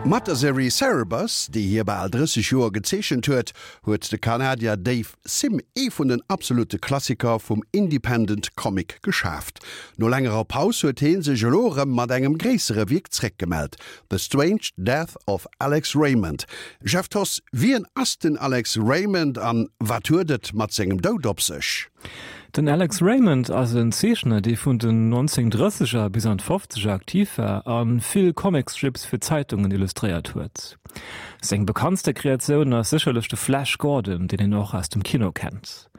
Mat der Serie Cerebus, déi hie bal 30 Joer gezeechent huet, huet de Kanadier Dave Sim ee vun den absolute Klassiker vum Independent Comic geschaaft. No längerer Paus huet hee sech elo erëm mat engem gréissere Wierk zréckgemellt, The Strange Death of Alex Raymond. Jeff Thoss, wien ass den Alex Raymond an wat huet et mat sengem Doud op sech? Den Alex Raymond ass en Zeechner, dee vun den 1930er bis an d'Fofzeger aktiv war a vill Comicstrips fir Zeitungen illustréiert huet. Seng bekanntste Kreatioun ass sécherlech de Flash Gordon, deen een och aus dem Kino kennt.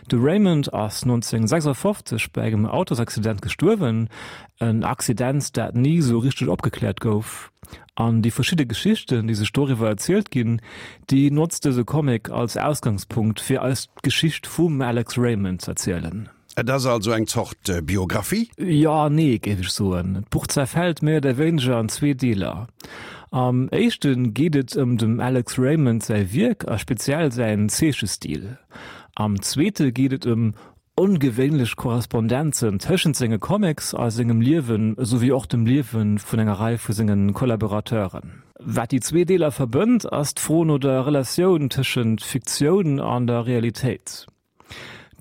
De Raymond ass 1956 bei engem Autosaccident gestuerwen, en Accident, dat ni sou richteg opgekläert gouf. An déi verschidde Geschichten, déi sech doriwwer erzielt ginn, déi notzt dëse Comic als Ausgangspunkt, fir eis d'Geschicht vum Alex Raymond z'erzielen. Et ass also eng Zort Biographie? Jo an nee, géif ech soen. D'Buch zerfält méi oder wéineger an zwee Deeler. Am éischte geet et ëm dem Alex Raymond säi Wierk a speziell säin Zeechestil. Am zweete geet et ëm Ongewéinlech Korrespondenzen tëschent senge Comics a sengem Liewen, esouwéi och dem Liewe vun enger Rei vu senge Kollaborateuren. Wat déi zwee Deeler verbënnt, ass d'Fro no der Relatioun tëschent Fiktioun an der Realitéit.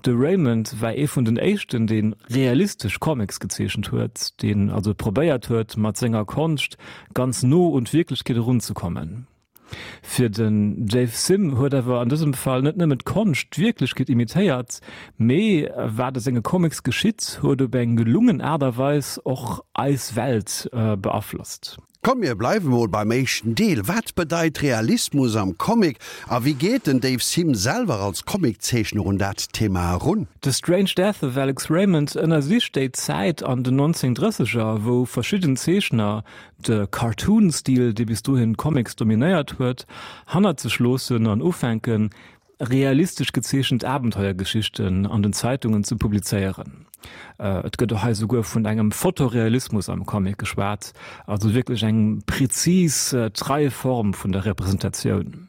De Raymond war ee vun den éischten, dee realistesch Comics gezeechent huet, deen also probéiert huet, mat senger Konscht ganz no un d'Wierklechkeet erunzekommen. Fir den Dave Sim huet awer an dësem Fall net nëmmen d'Konscht d'Wierklechkeet imitéiert, mee wat a senge Comics geschitt, huet op eng gelungen Aart a Weis och eis Welt beaflosst. Komm mir bleiwe mol beim éischten Deel. Wat bedeit Realismus am Comic a wéi geet den Dave Sim selwer als Comiczeechner un dat Thema erun? The Strange Death of Alex Raymond ënnersicht déi Zäit an den 1930er, wou verschidden Zeechner de Cartoon-Stil, dee bis dohin d'Comics dominéiert huet, hannert sech loossen an ufänken, realistesch gezeechent Abenteuergeschichten an den Zeitungen ze publizéieren. Et gëtt och hei souguer vun engem Fotorealismus am Comic geschwat, also wierklech eng prezis, trei Form vun der Representatioun.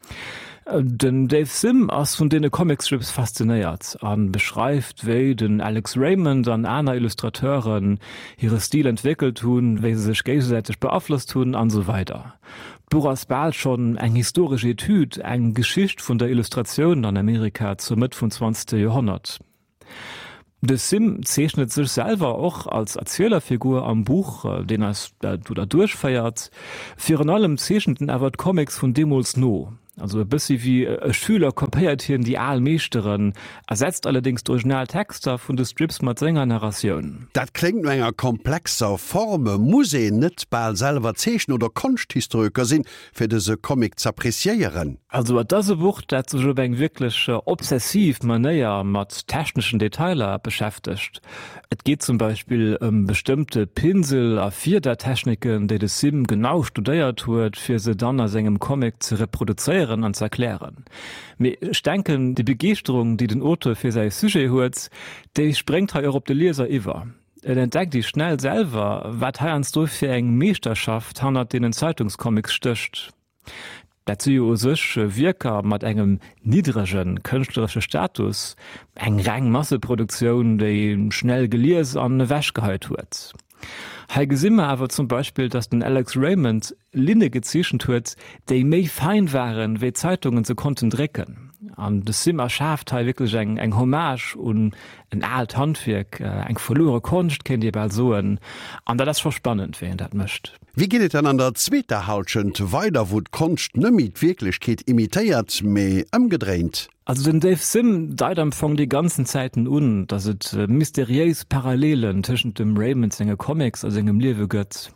Den Dave Sim ass vun deene Comicstrips faszinéiert a beschreift, wéi den Alex Raymond an aner Illustrateuren hire Stil entwéckelt hunn, wéi se sech géigesäiteg beaflosst hunn an esou weider. D'Buch ass bal schonn eng historesch Etüd, eng Geschicht vun der Illustratioun an Amerika zur Mëtt vum zwanzegste Joerhonnert. De Sim zeechnet sech selwer och als Erzielerfigur am Buch, deen eis do derduerch féiert. Virun allem zeechent en awer d'Comics vun deemools no. Also e bëssi wéi e Schüler kopéiert hien déi al Meeschteren, ersetzt allerdéngs d'original Texter vun de Strips mat senger Narratioun. Dat kléngt no enger komplexer Form. Muss een net bal selwer Zeechner oder Konschthistorioker sinn, fir dëse Comic z'appreciéieren? Also et ass e Buch, dat sech op eng wierklech obsessiv Manéier mat techneschen Detailer beschäftegt. Et geet zum Beispill ëm bestëmmte Pinsel a Fiedertechniken, déi de Sim genau studéiert huet, fir se dann a sengem Comic ze reproduzéieren an z'erklären. Mee ech denken, déi Begeeschterung, déi den Auteur fir säi Sujet huet, déi spréngt hei och op de Lieser iwwer. Et entdeckt ee schnell selwer, wat heiansdo fir eng Meeschterschaft hannert deenen Zeitungscomics stécht. Dat si jo u sech Wierker mat engem niddrege kënschtleresche Status, eng reng Masseproduktioun, déi schnell gelies an ewechgeheit huet. Hei gesi mer awer zum Beispill, datt den Alex Raymond Linne gezeechent huet, déi méi fein waren, wéi d'Zeitungen se konnten drécken. An de Sim erschaaft hei wierklech eng eng Hommage un en aalt Handwierk, eng verluere Konscht kéint ee bal soen. An dat ass scho spannend, wéi en dat mécht. Wéi geet et dann an der zweeter Hallschent weider, wou d'Konscht net méi d'Wierklechkeet imitéiert, mee ëmgedréint? Also den Dave Sim deit am Fong déi ganzen Zäiten un, datt et mysteriéis Parallelen tëschent dem Raymond senge Comics a sengem Liewe gëtt.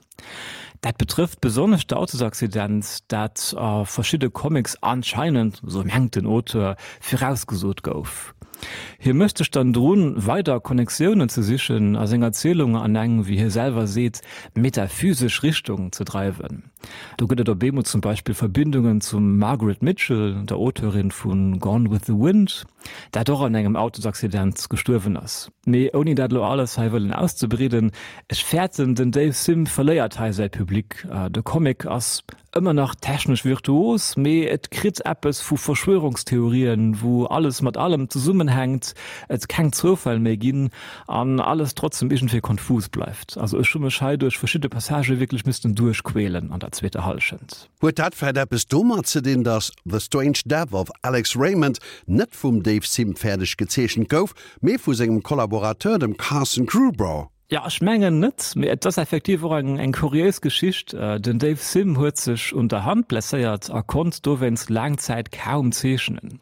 Dat betrëfft besonnesch d'Autosaccident, dat a verschidde Comics anscheinend, esou mengt den Auteur, virausgesot gouf. Hie mécht sech dann drun, weider Connectiounen ze sichen a seng Erzielung an eng, wéi hie selwer seet, metaphysesch Richtung ze dreiwen. Do gëtt et op eemol zum Beispill Verbindungen zum Margaret Mitchell, der Auteurin vu Gone with the Wind, dat och an engem Autosaccident gestuerwen ass. Mee ouni dat elo alles hei wëllen auszebreeden, ech fäerten, den Dave Sim verléiert hei säi Public. De Comic ass. Ëmmer nach technesch virtuos, mee et kritt eppes vu Verschwörungstheorien, wou alles mat allem zesummenhänkt, et keng Zoufäll méi ginn an alles trotzdem iergendwéi konfus bleift. Also ech hu mech hei duerch verschidde Passagë wierklech missten duerchquälen an der zweeter Hallschent. Huet dat vläit eppes domat ze dinn, datt The Strange Death of Alex Raymond net vum Dave Sim fäerdeg gezeechent gouf, mee vu sengem Kollaborateur, dem Carson Grubaugh? Jo, ech mengen net, mee et ass effektiv och eng eng kuriéis Geschicht. Den Dave Sim huet sech un der Hand blesséiert a konnt dowéinst laang Zäit kaum zeechnen.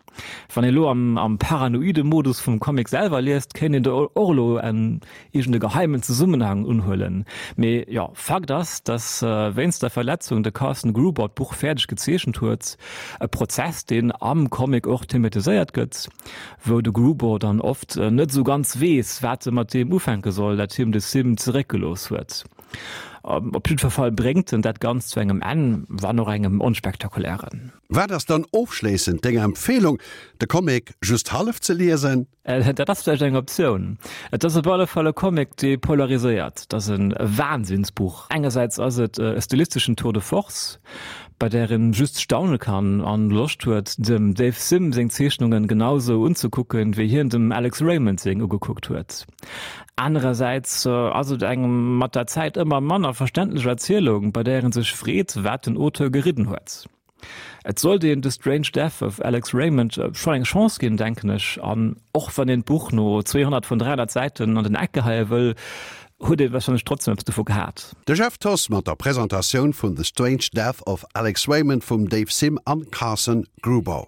Wann ee lo am am paranoide Modus vum Comic selwer liest, kéint een do och elo en iergend e geheimen Zesummenhang unhuelen. Mee jo, Fakt ass, dass wéinst der Verletzung de Carson Gruber d'Buch fäerdeg gezeechent huet, e Prozess, deen am Comic och thematiséiert gëtt. wou de Gruber dann oft net esou ganz weess, wat e mat deem ufänke soll, dat him de Sim zeréckgelooss huet. Op jiddwer Fall bréngt en dat Ganzt zu engem Enn, wann och engem onspektakulären. Wat ass dann ofschléissend deng Empfehlung? De Comic just hallef ze liesen? Dat ass vläicht eng Optioun. Et ass op alle Fall e Comic, dee polariséiert. Et ass e Wahnsinnsbuch. Engersäits ass et e stilisteschen Tour de force, bei där een just staune kann an Loscht huet dem Dave Sim seng Zeechnungen genau sou unzekucken wéi hien dem Alex Raymond seng ugekuckt huet. Anerersäits ass et eng mat der Zäit ëmmer manner verständlech Erzielung, bei där een sech freet wat den Auteur geridden huet. Et sollt een The Strange Death of Alex Raymond schonn eng Chance ginn, denken ech, an och wann een d'Buch no 200 vun 300 Säiten an den Eck geheie wëll, huet ee warscheinlech trotzdem eppes dovu gehat. De Jeff Thoss mat der Presentatioun vun The Strange Death of Alex Raymond vum Dave Sim an Carson Gruber.